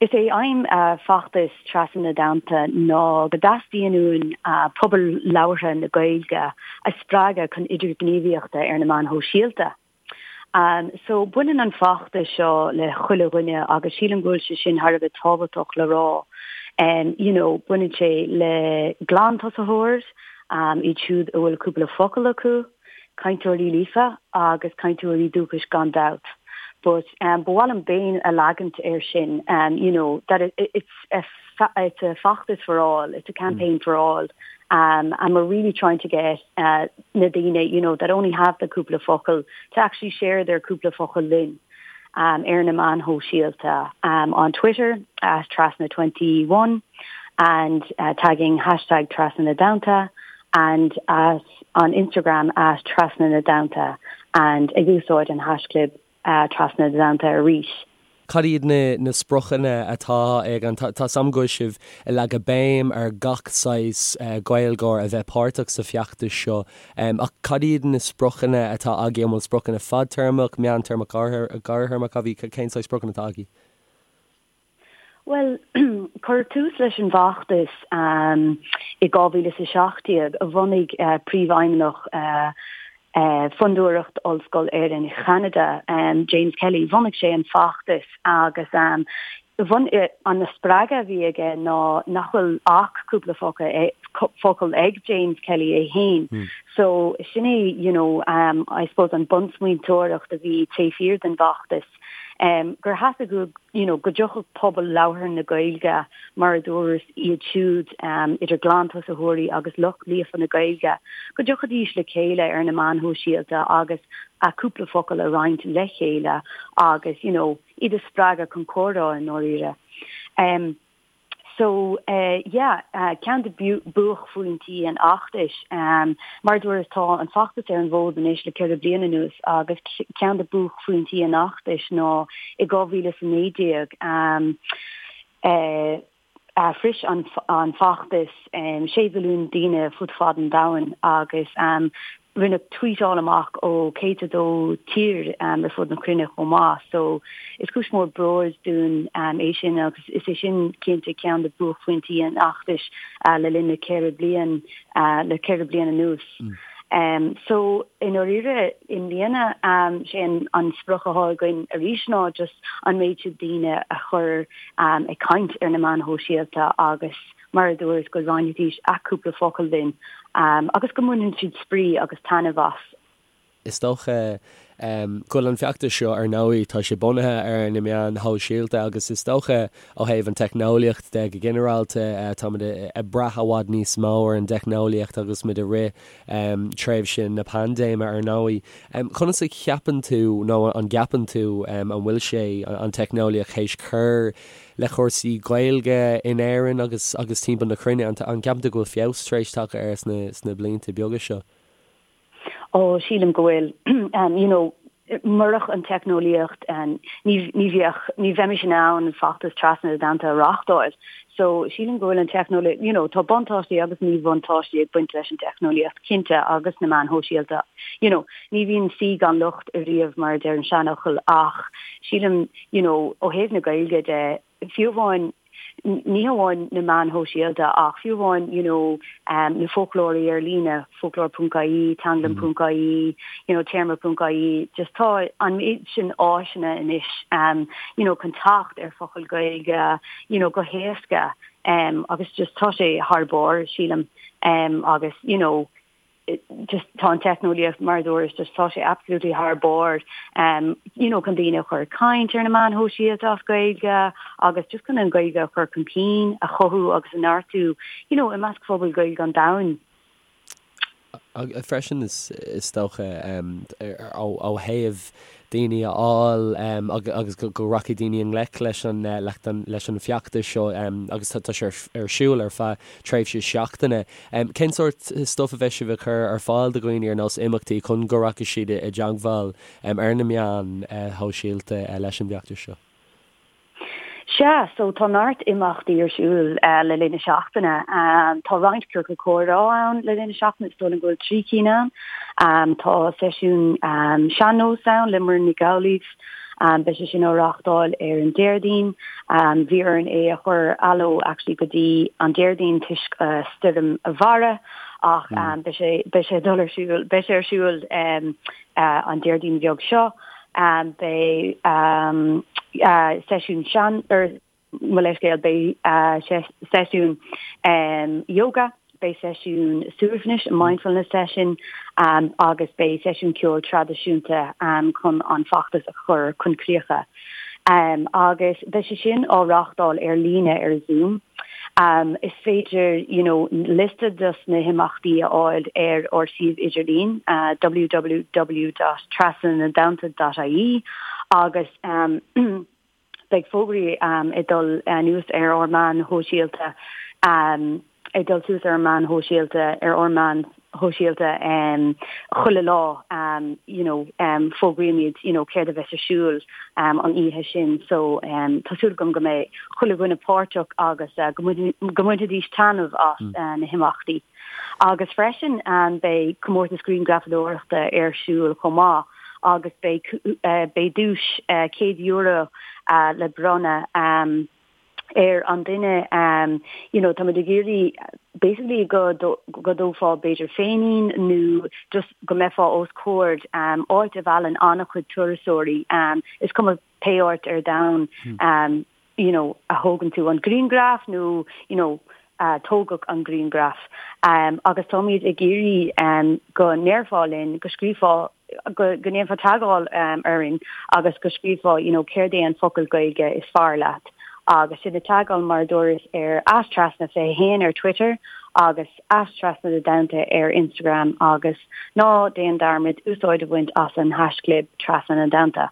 Is é aidhm feachtas Trasna na dTonnta ná go dteastaíonn uainn pobal labhartha na Gaeilge a spreagadh chun idirghníomhaíochta ar na meáin shóisialta. So, baineann an feachtas seo le chuile dhuine agus sílim go bhfuil sé sin thar a bheith tábhachtach le rá. You know, baineann sé le glantosaitheoir, iad siúd a bhfuil cúpla focal acu, cainteoirí líofa agus cainteoirí dúchais gan dabht. But um, ba mhaith liom béim a leagaint air sin, um, you know, that it, it's a it's a feachtas for all, it's a campaign for all. Um, and we're really trying to get uh, na daoine, you know, that only have the cúpla focal to actually share their cúpla focal linn um, ar na meáin shóisialta um, on Twitter at Trasna21 and uh, tagging hashtag Trasna na dTonnta and at on Instagram at Trasna na dTonnta and ag úsáid an haischlib Trasna na dTonnta arís. Cad iad na spriocanna atá ag an, tá 's a'm go bhfuil sibh ag leagadh béim ar gach saghas Gaeilgeoir a bheith páirteach sa feachtas seo ach cad iad na spriocanna atá agaibh, an bhfuil spriocanna fadtéarmach, meántéarmach, gearrthéarmach agaibh, cén saghas spriocanna atá agaibh? Bhuel, cuireadh tús leis an bhfeachtas i 2017, a bhunaigh Príomhfheidhmeannach Fondúireacht Ollscoil Éireann Cheanada, James Kelly, bhunaigh sé an feachtas agus an spreagadh a bhí aige ná nach bhfuil ach cúpla focal ag James Kelly é féin. So sin é, you know, I suppose an bunsmaointeoireacht a bhí taobh thiar den bhfeachtas, gur theastaigh uaidh, you know, go dtiocfadh pobal labhartha na Gaeilge, mar a dúras, iad siúd idir ghlantosaitheoirí agus lucht líofa na Gaeilge, go dtiocfaidís le chéile ar na meáin shóisialta agus a cúpla focal a roinnt le chéile agus, you know, iad a spreagadh chun comhrá i ndáiríre. Um, So yeah, ceann de buaicphointí an fheachtais, mar a dúras tá an feachtas ar an bhfód anois le 4 bliana anuas agus ceann de buaicphointí an fheachtais ná i 2019 shroich an feachtas 6 mhilliún daoine fud fad an domhain agus Rinneadh tweetáil amach ó 102 tír ar fud na cruinne chomh maith so is cúis mór bróid dúinn é sin agus is é sin cinnte ceann de buaicphointí an fheachtais le linn na 4 bliain le 4 bliain anuas. So i ndáiríre i mbliana sé an sprioc atá againn arís ná just an méid sin daoine a chur ag caint ar na meáin shóisialta agus mar a dúras, go roinnfidís a cúpla focal linn agus go mbaineann siad spraoi agus taitneamh as. Is dócha go bhfuil an feachtas seo, ar ndóigh, tá sé bunaithe ar na meáin shóisialta agus is dócha ó thaobh an teicneolaíocht de go ginearálta, táimid ag brath i bhfad níos mó ar an dteicneolaíocht agus muid i rith tréimhse na paindéime, ar ndóigh. Conas a cheapann tú nó an gceapann tú an bhfuil sé, an teicneolaíocht, théis cur le cúrsaí Gaeilge in Éirinn agus agus timpeall na cruinne, an gceapann tú go bhfuil feabhas tar éis tagtha air sna sna blianta beaga seo? Ó, sílim go bhfuil. You know, murach an teicneolaíocht, ní ní bheadh, ní bheimis in ann feachtas Trasna na dTonnta a reáchtáil. So, sílim go bhfuil an teicneolaíocht, you know, tá buntáistí agus míbhuntáistí ag baint leis an teicneolaíocht, cinnte, agus na meáin shóisialta. You know, ní bhíonn saoi gan locht ariamh, mar a deir an seanfhocal, ach sílim, you know, ó thaobh na Gaeilge de, fiú amháin, ní hamháin na meáin shóisialta ach fiú amháin, you know, na foclóirí ar líne, foclóir ponc ie, teanglann ponc ie, you know, téarma ponc ie, just tá an méid sin áiseanna anois, um, you know, chun teacht ar focail Gaeilge, you know, go héasca, um, agus just tá sé thar barr, sílim, um, agus, you know, just tá an teicneolaíocht mar a dúras just tá sé absolutely thar barr um, you know, chun daoine a chur ag caint ar na meáin shóisialta as Gaeilge agus just chun an Ghaeilge a chur chun cinn, a chothú agus a neartú you know, i measc phobal Gaeilge an domhain. Freisin is is dócha um, ó, ó thaobh daoine a fháil agus go rachaidh daoine i ngleic leis an leis an bhfeachtas seo agus tá sé ar siúl ar feadh tréimhse seachtaine. Cén sórt stuif a bheidh sibh ag cur ar fáil do dhaoine ar nós imeachtaí chun go rachaidh siad i dteagmháil ar na meáin shóisialta leis an bhfeachtas seo? Sea, so tá neart imeachtaí ar siúl le linn na seachtaine. Tá roinnt ciorcal comhrá ann le linn na seachtaine, is dóigh liom go bhfuil 3 cinn ann. Tá seisiún sean-nós ann le Muireann Nic Amhlaoibh. Beidh sé sin á reáchtáil ar an Déardaoin. Bhí orainn é a chur anall actually go dtí an Déardaoin toisc stoirm Bharra ach beidh sé beidh sé ag dul ar siúl beidh sé ar siúl an Déardaoin bheag seo. Beidh seisiún sean or mo leithscéal, beidh seisiún yoga, beidh seisiún suaimhnis, mindfulness session, agus beidh seisiún ceoil traidisiúnta chun an feachtas a chur chun críocha. Agus beidh sé sin á reáchtáil ar líne ar Zoom. Is féidir you know liosta dos na himeachtaí a fháil ar ár suíomh idirlín www.trasnanadtonnta.ie agus Beidh fógraí ag dul anuas ar ár meáin shóisialta, ag dul suas ar ár meáin shóisialta, ar ár meáin shóisialta chuile lá, you know, fógraímid, you know, céard a bheas ar siúl an oíche sin. So, tá súil agam go mbeidh chuile dhuine páirteach agus go mbainfidís taitneamh as na himeachtaí. Agus freisin beidh comórtas grianghrafadóireachta ar siúl chomh maith agus beidh beidh duais €100 le bronnadh ar an duine you know táimid ag iarraidh basically go go dtógfá b'fhéidir féinín nó just go mbeifeá os comhair áit a mheallann an-chuid turasóirí is cuma pé áit ar domhan you know, a thógann tú an grianghraf nó, you know, a tógadh an grianghraf. Agus táimid ag iarraidh go ndéarfá linn, go scríobhfá, go ndéanfá teagmháil orainn agus go scríobhfá, you know, céard é an focal Gaeilge is fearr leat. Agus sinn ag teagmháil mar a dúras ar @trasna21 ar Twitter agus @trasnanadtonnta ar Instagram agus ná déan dearmad úsáid a bhaint as an haischlib trasna na dtonnta.